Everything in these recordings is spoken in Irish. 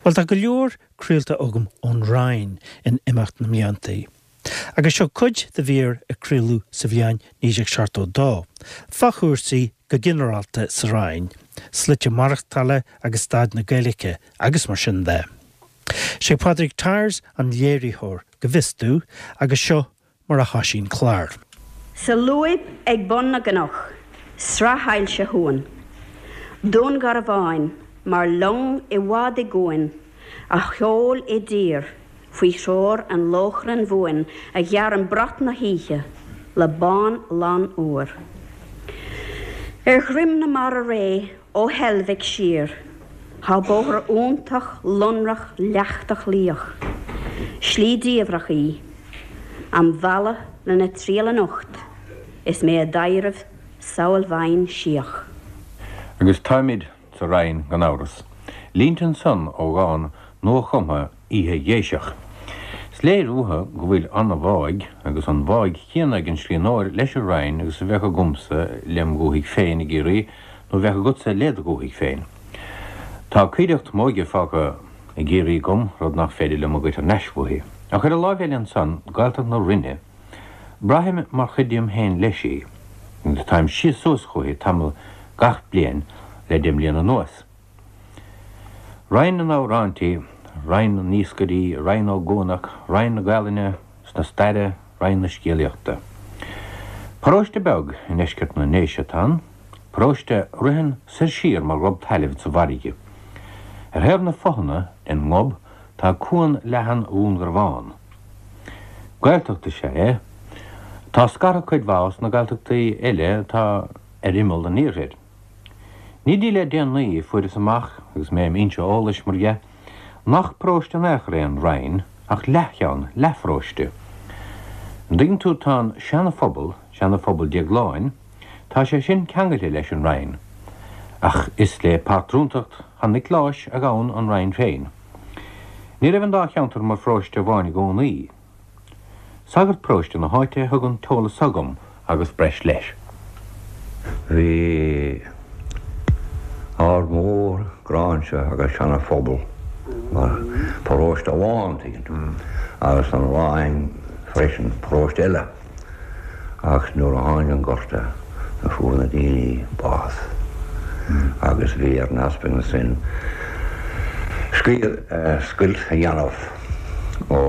Bhuel, tá go leor craolta agam ón Rinn in imeacht na mblianta. Agus seo cuid de mhír a craoladh sa bhliain 1972, fá chúrsaí go ginearálta sa Rinn, slite maireachtála agus staid na Gaeilge agus mar sin de. Sé Pádraig Tyers an léiritheoir, go bhfios domh, agus seo mar a thoisigh an clár. Sa lúib ag bun na gcnoc, sraith ailse shuain, Dún Garbháin mar long i bhfad i gcuan a sheol i dtír faoi threoir an lóchrainn bhuain a ghearrann brat na hoíche le bán lán úr. Ar dhroim na mara réidh ó Heilbhic siar, Tá bóthar iontach lonrach leachtach líoch. Slí diamhrach í. Am mhealladh lena triall anocht is mé i dtaidhreamh samhail bhinn síoch. Agus táimid sa Rinn gan amhras. Línte ansan ó dhán nua-chumtha Oíche Ghéiseach. Is léir uathu go bhfuil an-bháidh, agus an bháidh chéanna ag an scríbhneoir leis an Rinn agus a bheadh agamsa lem dhúthaigh féin i gCiarraí, nó a bheadh agatsa led dhúthaigh féin. Tá coimhdeacht m'óige fágtha i gCiarraí agam, rud nach féidir liom a ghoid thar n-ais uaithi. Ach ar an láimh eile ansan, Gaeltacht na Rinne, braithim mar chuid díom féin leis í, agus táim síos suas chúithi tamall gach bliain le deich mbliana anuas. Rinn na n-amhráintí, Rinn na n-iascairí, Rinn Ó gCuanach, Rinn na Gaelainne 's na staire, Rinn na scéalaíochta. Paróiste beag i ndeisceart na nDéise atá ann, paróiste a ritheann soir siar mar ghob tailimh sa bhfarraige. Ar thaobh na fothana den ngob tá cuan leathan Dhún Garbhán. Gaeltacht is ea é, atá scartha cuid mhaith os na Gaeltachtaí eile atá ar imeall an iarthair. Ní dtí le déanaí a fuaireas amach, agus mé im fhoinse eolais, mar dhea, nach paróiste in aon chor é an Rinn, ach leathcheann, leathpharóiste. An dtuigeann tú, tá an Seana-Phobal, Seana-Phobal Déagláin, tá sé sin ceangailte leis an Rinn, ach is le pátrúntacht Shan Niocláis a ghabhann an Rinn féin. Ní raibh an dá cheantar mar pharóiste amháin i gcónaí. Sagart paróiste na háite a thug an t-eolas seo dhom agus breis leis. Bhí Ard Mór, Gráinse agus Seana Phobal mar paróiste amháin, tuigeann tú, agus an Rinn freisin, paróiste eile. Ach nuair a tháinig an Gorta fuair na daoine bás agus bhí ar an easpag ansin scoilt a dhéanamh ó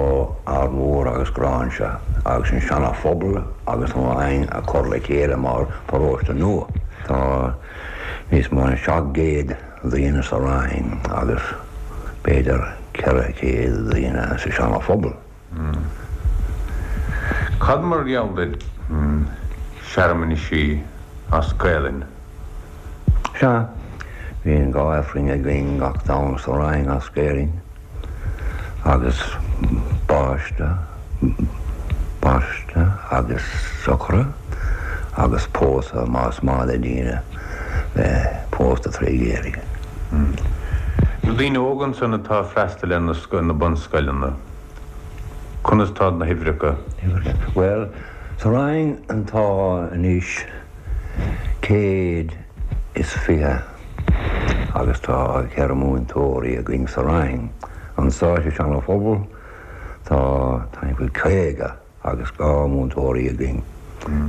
Ard Mhór agus Gráinse agus an Seana Phobal agus an Rinn a chur le chéile mar paróiste nua. Tá níos mó ná 700 daoine sa Rinn agus b'fhéidir 400 daoine sa Seana Phobal. Cad mar gheall ar searmanaisí as Gaelainn? Sea, bíonn 2 Aifrinn againn gach Domhnach sa Rinn as Gaelainn agus baisteadh, baisteadh agus socraid agus pósadh más maith le daoine bheith pósta tré Ghaeilge. Na daoine óga ansan atá ag freastal ar na bunscoileanna, conas tá na huimhreacha? Bhuel, sa Rinn tá anois 120 agus tá 4 múinteoirí againn sa Rinn. Anso sa Seana Phobal tá timpeall 50. agus 2 múinteoirí againn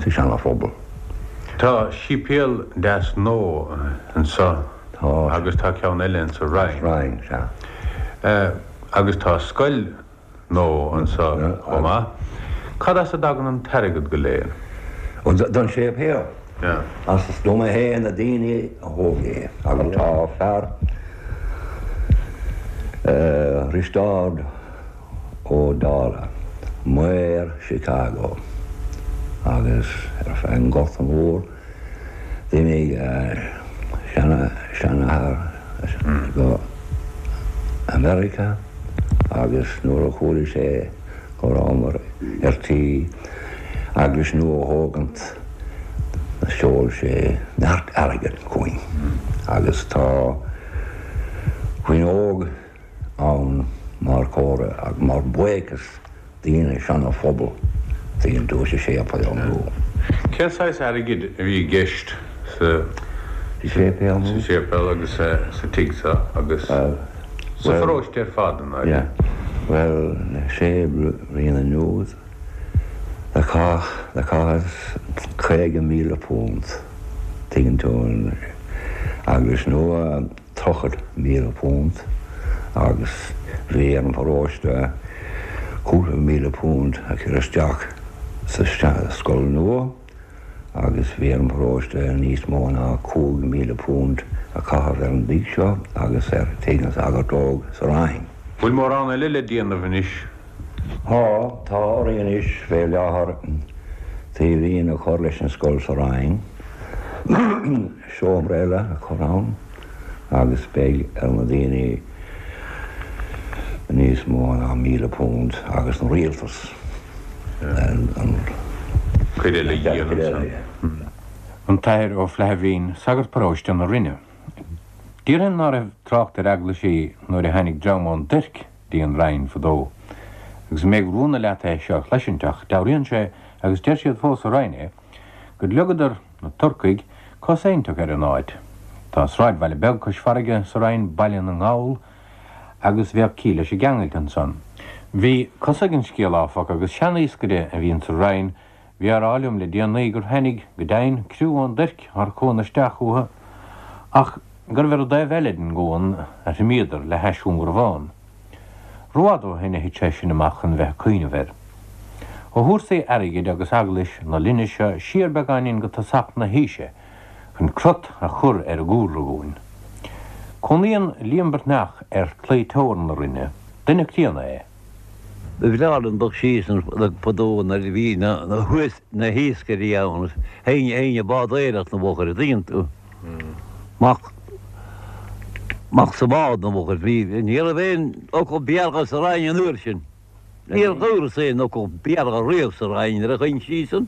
sa Seana Phobal. Tá séipéal deas nua anso agus tá ceann eile insa Rinn. Rinn, sea. Agus tá scoil nua anso chomh maith. Cad as a dtagann an t-airgead go léir? Ó, don séipéal. As dom féin na daoine a thóg é agus tá fear, Risteárd, Ó Dálaigh, maor Chicago, agus ar feadh an Ghorta Mhór d'imigh a seanathair go America agus nuair a chuala sé go rabhamar ar tí eaglais nua a thógaint sheol sé neart airgid chugainn agus tá fuinneog ann mar chomhartha agus mar bhuíochas daoine Seana Phobal tuigeann tú sa séipéal nua. Cén saghas airgid a bhí i gceist sa séipéal agus sa tigh seo agus? Sa pharóiste ar fad, an Yeah. Bhuel, le sé bliana anuas, do chaith, do chaitheas £50,000, tuigeann tú, an eaglais nua, £30,000 agus bhí ar an pharóiste cúpla míle punt a chur isteach sa scoil nua agus bhí ar an bparóiste níos mó ná £5,000 a chaitheamh ar an dtigh seo agus ar tigh na Sagart Óg sa Rinn. Bhfuil mórán eile le déanamh anois? Tá, tá orainn anois fé láthair taobhlíne a chur leis an scoil sa Rinn. seomra eile a chur ann agus beidh ar na daoine níos mó ná £1,000 agus an rialtas an cuid eile a dhéanamh ansan. An tAthair Ó Flaithbhín, sagart paróiste na Rinne. Déarfainn ná raibh trácht ar eaglaisí nuair a tháinig dream ón dTuirc dtí an Rinn fadó. Agus ní bheadh rúnda leat é seo a chloisint ach dealraíonn sé, agus deir siad fós sa Rinn é, gur leagadar, na Turcaigh, cos éinteach ar an áit. Tá sráidbhaile beag cois farraige sa Rinn, Baile na nGall, agus bheadh ciall leis an gceangailt ansan. Bhí cosa ag an scéal, áfach, agus sean-iascaire a bhíonn sa Rinn, bhí á rá liom le déanaí gur tháinig, go deimhin, criú ón dTuirc thar cuan isteach chucu, ach gurbh ar an dtaobh eile den gcuan a thriomaíodar le hais Dhún Garbhán. Rófhada ó shin a thit sé sin amach chun bheith ag cuimhneamh air. Ó chúrsaí airgid agus eaglais na linne seo siar beagáinín go tosach na haoise chun crot a chur ar an gcúlra dhúinn. Cónaíonn Liam Breathnach ar chlaí teorann na Rinne. Duine críonna é. Ba bhreá liom dul síos fadó nuair a bhí na hiascairí ann, théinn ag bádóireacht na bhfochair, an dtuigeann tú? Amach, amach sa bhád na bhfochair. Bhí, ní raibh aon fhocal Béarla sa Rinn an uair sin. Níor dhúras aon fhocal Béarla riamh sa Rinn nuair a chuaigh síos ann.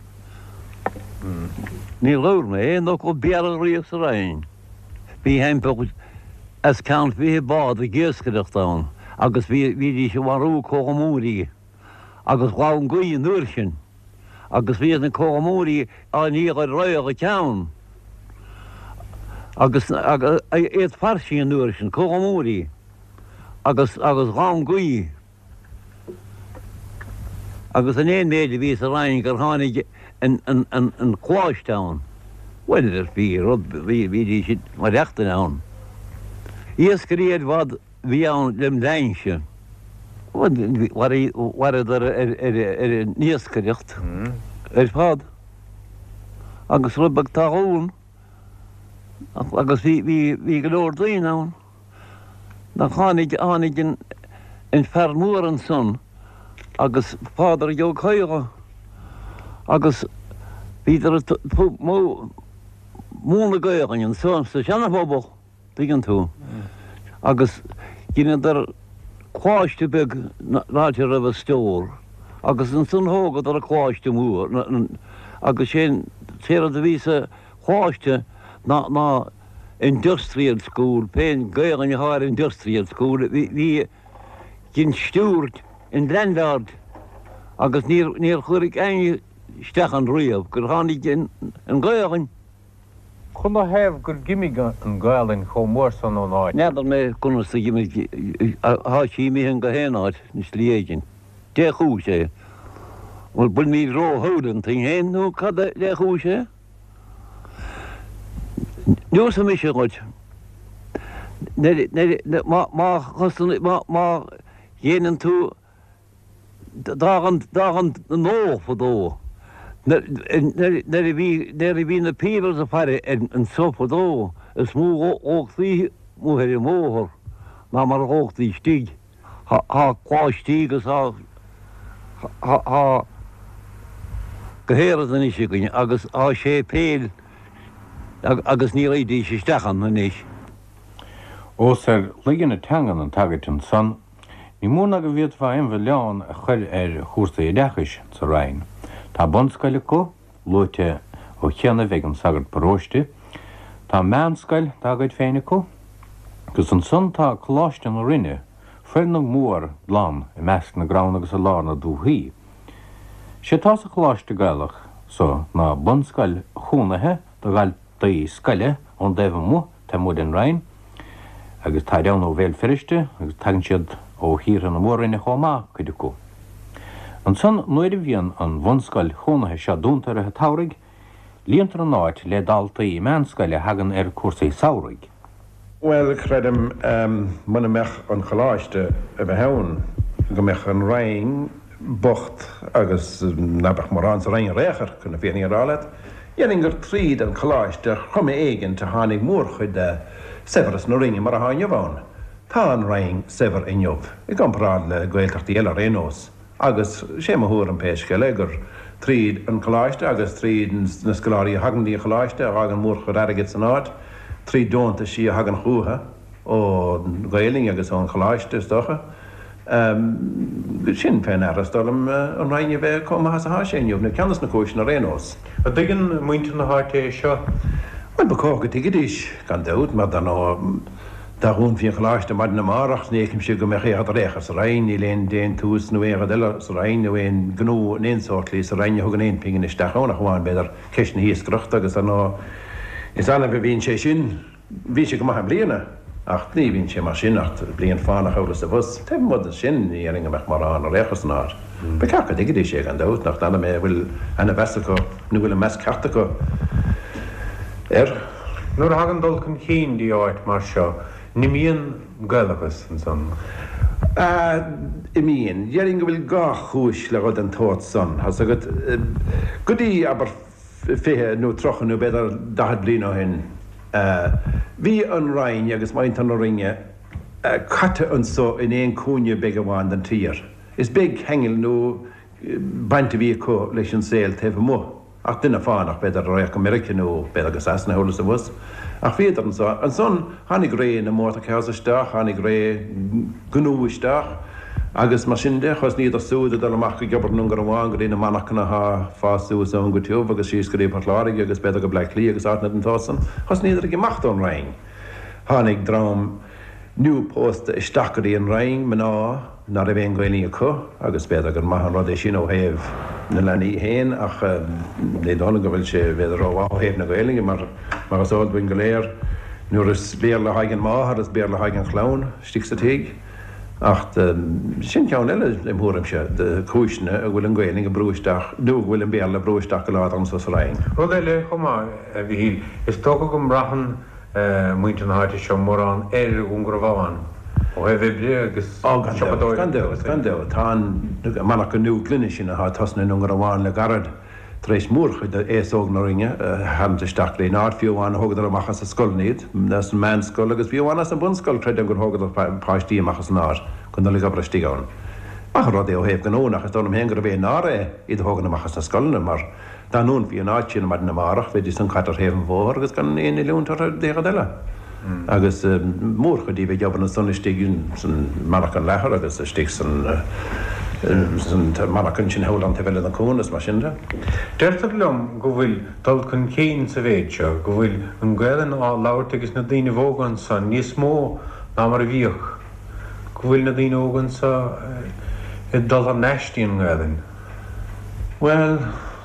Níor dhúirt mé aon fhocal Béarla riamh sa Rinn. Bhí thimpeall os cionn 20 bád ag iascaireacht ann agus bhí, bhídís ag marú cochamóirí agus ghabh an ghaoth an uair sin agus bhíodh na cochamóirí á ndíol ar roigheadh a ceann agus iad fairsing an uair sin, cochamóirí agus agus ghabh an ghaoth. Agus an aon méid a bhí sa Rinn gur tháinig an coláiste ann, bhuel, bhí rud, bhídís ag maireachtaint ann. Iascairí ar fad a bhí ann lem linnse. Mhaireadar ar an iascaireacht ar fad. Agus rud beag talún agus bhí go leor daoine ann. Nach tháinig, tháinig an, an fear mór ansan agus Pádraig Ó Cadhla agus bhíodar ag múineadh Gaelainne ansan sa Seana-Phobal, tuigeann tú, agus dheineadar coláiste beag an áit a raibh an stór agus ansan thógadar an coláiste mór agus sé'n t-éard a bhí sa choláiste ná, ná Industrial School, pén Gaelainn atá ar Industrial School, bhí den steward an landlord agus níor níor chuir éinne isteach ann riamh gur tháinig an Ghaelainn. Canathaobh gur dh'imigh an Ghaelainn chomh mór san ón áit? N'fheadar mé conas a dh'imigh, thá sí imithe go haon áit i slí éigin. Dé chúis é? Bhfuil bhfuilimid ró-shúil iontainn féin nó cad é dé chúis é? Neosfaidh mise dhuit. Má dhéanann tú d'fhág an gnó fadó, nuair a bhí na peebles ag faire anso fadó, is mó a dhóchtaí amuigh ar an mbóthar ná mar a dhóchtaí istigh. Thá coláistí agus thá thá go héiread anois againn agus thá séipéil agus ní raghaidís isteach ann anois. Ós ar laige na teangan an tagairt ansan, ní mór ná go bhféadfá aon mhilleán a chur ar chúrsaí oideachais sa Rinn. Tá bunscoil acu, luaite ó chianaibh ag an sagart paróiste. Tá meánscoil dá gcuid féin acu, agus ansan tá Coláiste na Rinne, foirgneamh mór glan i measc na gcrann agus i lár na dúthaí. Sé atá sa Choláiste Gaelach so ná bunscoil chónaithe do dhaltaí scoile ón dtaobh amuigh, taobh amuigh den Rinn. Agus táid ann ó Bhéal Feirste agus tagann siad ó thíortha na Mór-Roinne chomh maith, cuid acu. Ansan nuair a bhíonn an bhunscoil chónaithe seo dúnta i rith an tsamhraidh, líontar an áit le daltaí meánscoile a thagann ar cúrsaí samhraidh. Bhuel, creidim, muna mbeadh an Choláiste a bheith ann, go mbeadh an Rinn bocht agus ná beadh mórán sa Rinn ar aon chor, chun na fírinne a rá leat. Déarfainn gur tríd an Choláiste ar chuma éigint a tháinig mórchuid de saibhreas na Rinne mar atá inniu ann. Tá an Rinn saibhir inniu, i gcomparáid le Gaeltachtaí eile ar aon nós. Agus sé mo thuairim pé scéal é gur tríd an Choláiste agus tríd na scoláirí a thagann dtí an Choláiste a fhágann mórchuid airgid san áit, tríd deontaisí a thagann chútha ón Ghaelainn agus ón Choláiste is dócha. Sin fé ndeara is dóigh liom an Rinn a bheith chomh maith is atá sé inniu, nó ceann des na cúiseanna ar aon nós. An dtuigeann muintir na háite é seo? Bhuel, ba chóir go dtuigfidís, gan dabht, mar dar ndóigh, Dá dhúnfaí an Choláiste maidin amárach, ní fheicimse go mbeadh aon rud ar aon chor sa Rinn, níl aon déantús nó aon rud eile sa Rinn nó aon ghnó in aon sórt slí sa Rinn a thugann aon phingin isteach ann ach amháin, b'fhéidir, ceist na hiascaireachta agus ar ndóigh is annamh a bhíonn sé sin. Bhí sé go maith i mbliana ach ní bhíonn sé mar sin ach bliain fánach thall is abhus. Taobh amuigh de sin ní dhéarfainn go mbeadh mórán ar aon chor san áit. Ba cheart go dtuigfidís é gan dabht, nach n'fheadar mé an bhfuil ana mheas acu nó bhfuil an meas ceart acu air. Nuair a thagann dul chun cinn dtí áit mar seo, n-imíonn Gaelachas ansan? Imíonn. Déarfainn go bhfuil dhá chúis le rud den tsórt san, thá's agat. Go dtí, abair, 20 nó 30 nó b'fhéidir 40 bliain ó shin, bhí an Rinn agus muintir na Rinne caite anso in aon chúinne beag amháin den tír. Is beag ceangal nó baint a bhí acu leis an saol taobh amuigh, ach duine fánach, b'fhéidir, a raghadh go Meiriceá nó b'fhéidir go Sasana thall is abhus. Ach bhíodar anso. Ansan tháinig ré na motor cars isteach, tháinig ré gnó isteach agus mar sin de, thosnaíodar súd ag dul amach ag obair i nDún Garbhán go dtí na monarchana athá ag fás suas ann go tiubh agus síos go dtí Port Láirge agus b'fhéidir go Bleá Cliath agus áiteanna den tsórt san. Thosnaíodar ag imeacht ón Rinn. Tháinig dream nua-phósta isteach go dtí an Rinn, mná ná raibh aon Ghaelainn acu, agus b'fhéidir gur maith an rud é sin ó thaobh na leanaí féin ach ní dóigh liom go bhfuil sé b'fhéidir rómhaith ó thaobh na Gaelainne mar, mar is eol dúinn go léir, nuair is Béarla atá ag an máthair is Béarla atá ag an chlann istigh sa tigh. Ach sin ceann eile, im thuairimse, de chúiseanna a bhfuil an Ghaelainn ag brú isteach, nó go bhfuil an Béarla ag brú isteach go láidir anso sa Rinn. Rud eile chomh maith, a Mhichíl, is dócha go mbraitheann muintir na háite seo mórán ar Dhún Garbhán ó thaobh oibre agus Ó, gan dabht, gan dabht, gan dabht. Tá an monarcha nua gloine sin atá ag tosnú i nDún Garbhán le gairid tar éis mórchuid d'aos óg na Rinne a tharraingt isteach go dtí an áit, fiú amháin thógadar amach as an scoileanna iad, as an meánscoil agus fiú amháin as an bunscoil, creidim gur thógadar páistí amach as an áit chun dul ag obair istigh ann. Maith an rud é ó thaobh gnó, nach is dóigh liom féin gurbh é náire é iad a thógaint amach as na scoileanna mar Dá ndúnfaí an áit sin maidin amárach, bheidís san caite ar thaobh an bhóthair agus gan aon oiliúint orthu d'aon rud eile. Agus mórchuid díobh ag obair ansan istigh san monarcha leathair agus istigh san monarcha ansin thall an taobh eile den chuan is mar sin de. Deirtear liom go bhfuil dul chun cinn sa mhéid seo, go bhfuil an Ghaelainn á labhairt ages na daoinibh óga anso níos mó ná mar a bhíodh, go bhfuil na daoine óga anso ag dul thar n-ais dtí an nGaelainn. Bhuel,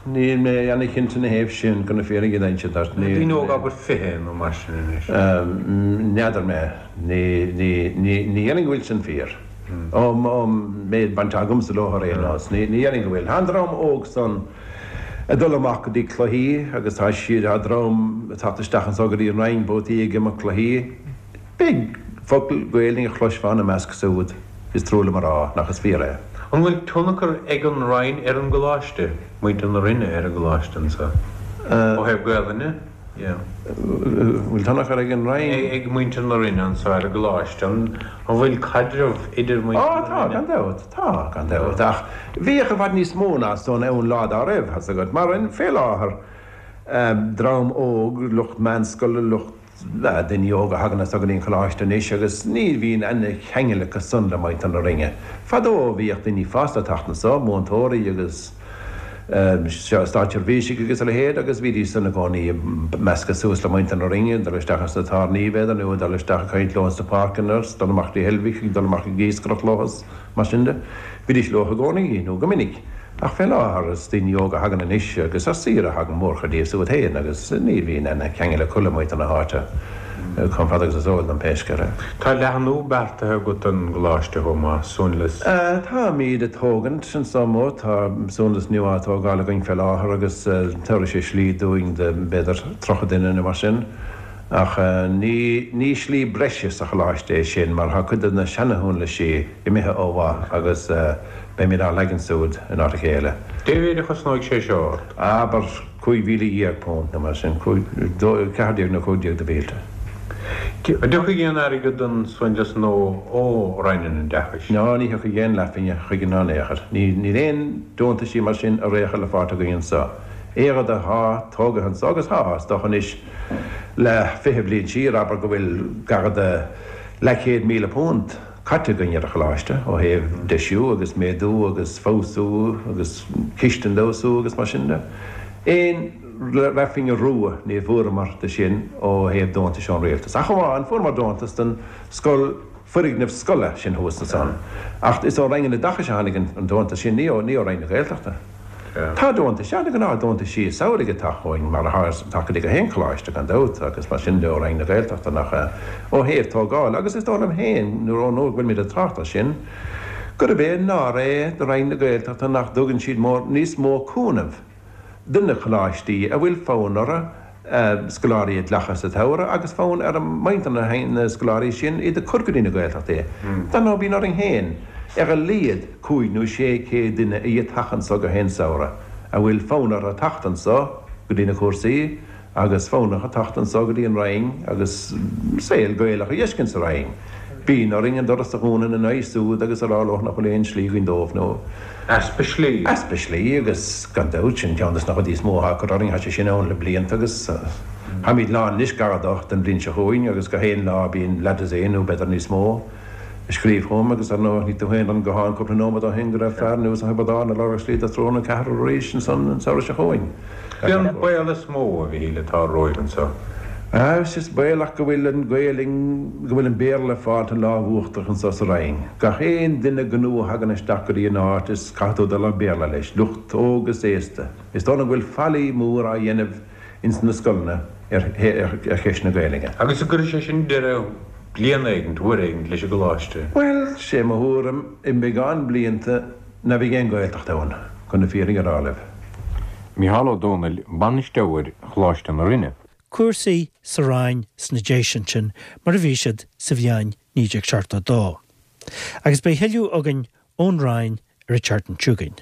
níl mé ana-chinnte ina thaobh sin, chun na fírinne a inse duit. Ní. Daoine óga, abair 20 nó mar sin anois. N'fheadar mé. Ní, ní, ní, ní dhéarfainn go bhfuil sin fíor. Ón méid baint agamsa leo ar aon nós, ní, ní dhéarfainn go bhfuil. Tá an dream óg san ag dul amach go dtí cluichí agus tá siad, tá dream ag teacht isteach anso go dtí an Rinn babhtaí ag imirt cluichí. Beag focal Gaelainne a chloisfeá ina measc siúd, is trua liom a rá nach is fíor é. An bhfuil tionchar ag an Rinn ar an gColáiste, muintir na Rinne ar an gColáiste anso, ó thaobh Gaelainne? Yeah. Bhfuil tionchar ag an Rinn? Ag muintir na Rinne anso ar an gColáiste. An bhfuil caidreamh idir muintir na Rinne? Á, tá, gan dabht. Tá, gan dabht. Ach bhíodh i bhfad níos mó ná san ann lá dá raibh, thá's agat. Mar fé láthair, dream óg, lucht meánscoile, lucht. Daoine óga a thagann anso go dtí an choláiste anois agus ní bhíonn aon cheangal acu san le muintir na Rinne. Fadó bhíodh daoine fásta ag teacht anso, múinteoirí agus státseirbhísigh agus a leithéid agus bhídís san i gcónaí ag meascadh suas le muintir na Rinne, ag dul isteach sna tábhairní b'fhéidir nó ag dul isteach ag caint leo sna páirceanna, ag dul amach dtí Heilbhic, ag dul amach ag iascaireacht leo is mar sin de. Bhídís leo i gcónaí nó go minic. Ach fé láthair is daoine óga a thagann anois agus ar saoire a thagann mórchuid díobh súd féin agus ní bhíonn aon cheangal acu le muintir na háite. Chomh fada agus is eol dom pé scéal é. Tá leathnú beartaithe agat don gcoláiste chomh maith, suanlios. Táimíd ag tógaint anso amuigh, tá suanlios nua á tógáil againn fé láthair agus tabharfaidh sé slí dúinn do b'fhéidir 30 duine nó mar sin. Ach ní ní slí breise sa choláiste é sin mar tá cuid de na seana-shuanlaisí imithe ó mhaith agus beimid á leagan súd in áit a chéile. Cé mhéid a chosnóidh sé seo ort? Abair £15,000 nó mar sin, 14 nó 15 de mhílte. An dtiocfaidh aon airgead don suanlios nua ó Roinn an Oideachais? Ná ní thiocfaidh aon leathphingin chuige ná in aon chor. Níl aon deontaisí mar sin ar aon chor le fáilt againn anso. Aon rud athá tógaithe anso, agus thá, is dócha anois le 20 bliain siar, abair go bhfuil gar do leathchéad £1,000 caite againn ar an choláiste ó thaobh deisiú agus méadú agus feabhsú agus cistin d'fheabhsú agus mar sin de. Aon leathphingin rua ní bhfuaireamar de sin ó thaobh deontais ón rialtas. Ach amháin fuaireamar deontas don scoil, foirgneamh scoile sin thuas ansan. Ach is ó Roinn an Oideachais a tháinig an deontas sin, ní ó Roinn na Gaeltachta. Tá deontais, sea, na gnáth deontaisí samhraidh ag teacht chugainn, mar atá ag teacht go dtí gach aon choláiste, gan dabht, agus mar sin de ó Roinn na Gaeltachta, nach ea, ó thaobh tógála, agus is dóigh liom féin, nuair ón uair go bhfuilimid ag trácht air sin, gurb é náire é do Roinn na Gaeltachta nach dtugann siad mór, níos mó cúnaimh do na coláistí a bhfuil fonn orthu scoláirí a ghlacadh sa tsamhradh agus fonn ar mhuintir na scoláirí sin iad a chur go dtí na Gaeltachtaí. Dar ndóigh bíonn orainn féin ar a laghad 500 nó 600 duine a fhaightear anso gach aon samhradh a bhfuil fonn orthu teacht anso go dtí na cúrsaí agus fonn orthu teacht anso go dtí an Rinn agus saol Gaelach a dh'fheiscint sa Rinn. Bíonn orainn an doras a dhúnadh ina n-aghaidh súd agus a rá leo nach bhfuil aon slí againn dóibh nó. Easpa slí. Easpa slí agus gan dabht sin ceann des na rudaí is mó atá ag cur orainn, tá sé sin ann le blianta agus táimid lán anois gar do don bhliain seo chugainn agus gach aon lá bíonn leathdosaen nó b'fhéidir níos mó ag scríobh chugam agus ar ndóigh chonaic tú féin ar an guthán cúpla nóiméad ó shin go raibh fear anuas ó Thiobraid Árann ag lorg slí do thriúr nó ceathrar arís ansan an samhradh seo chugainn. Cé an baol is mó, a Mhichíl, atá romhaibh anseo? Is baolach go bhfuil an Ghaelainn, go bhfuil an Béarla ag fáilt an lámh uachtarach anso sa Rinn. Gach aon duine gnó a thagann isteach go dtí an áit is caithfidh tú dul ar Béarla leis, lucht óg is aosta. Is dóigh liom go bhfuil faillí mór á dhéanamh ins na scoileanna ar cheist na Gaelainne. Agus an gcuirfidh sé sin deireadh bliain éigint, uair éigint, leis an gcoláiste? Bhuel, sé mo thuairim, i mbeagán blianta, Ná beidh aon Ghaeltacht ann, chun na fírinne a rá libh. Micheál Ó Domhnaill, Bainisteoir Choláiste na Rinne. Cúrsaí sa Rinn sna Déise ansin mar a bhí siad sa bhliain 1972. Agus beidh thuilleadh againn ón Rinn ar an tseachtain seo chugainn.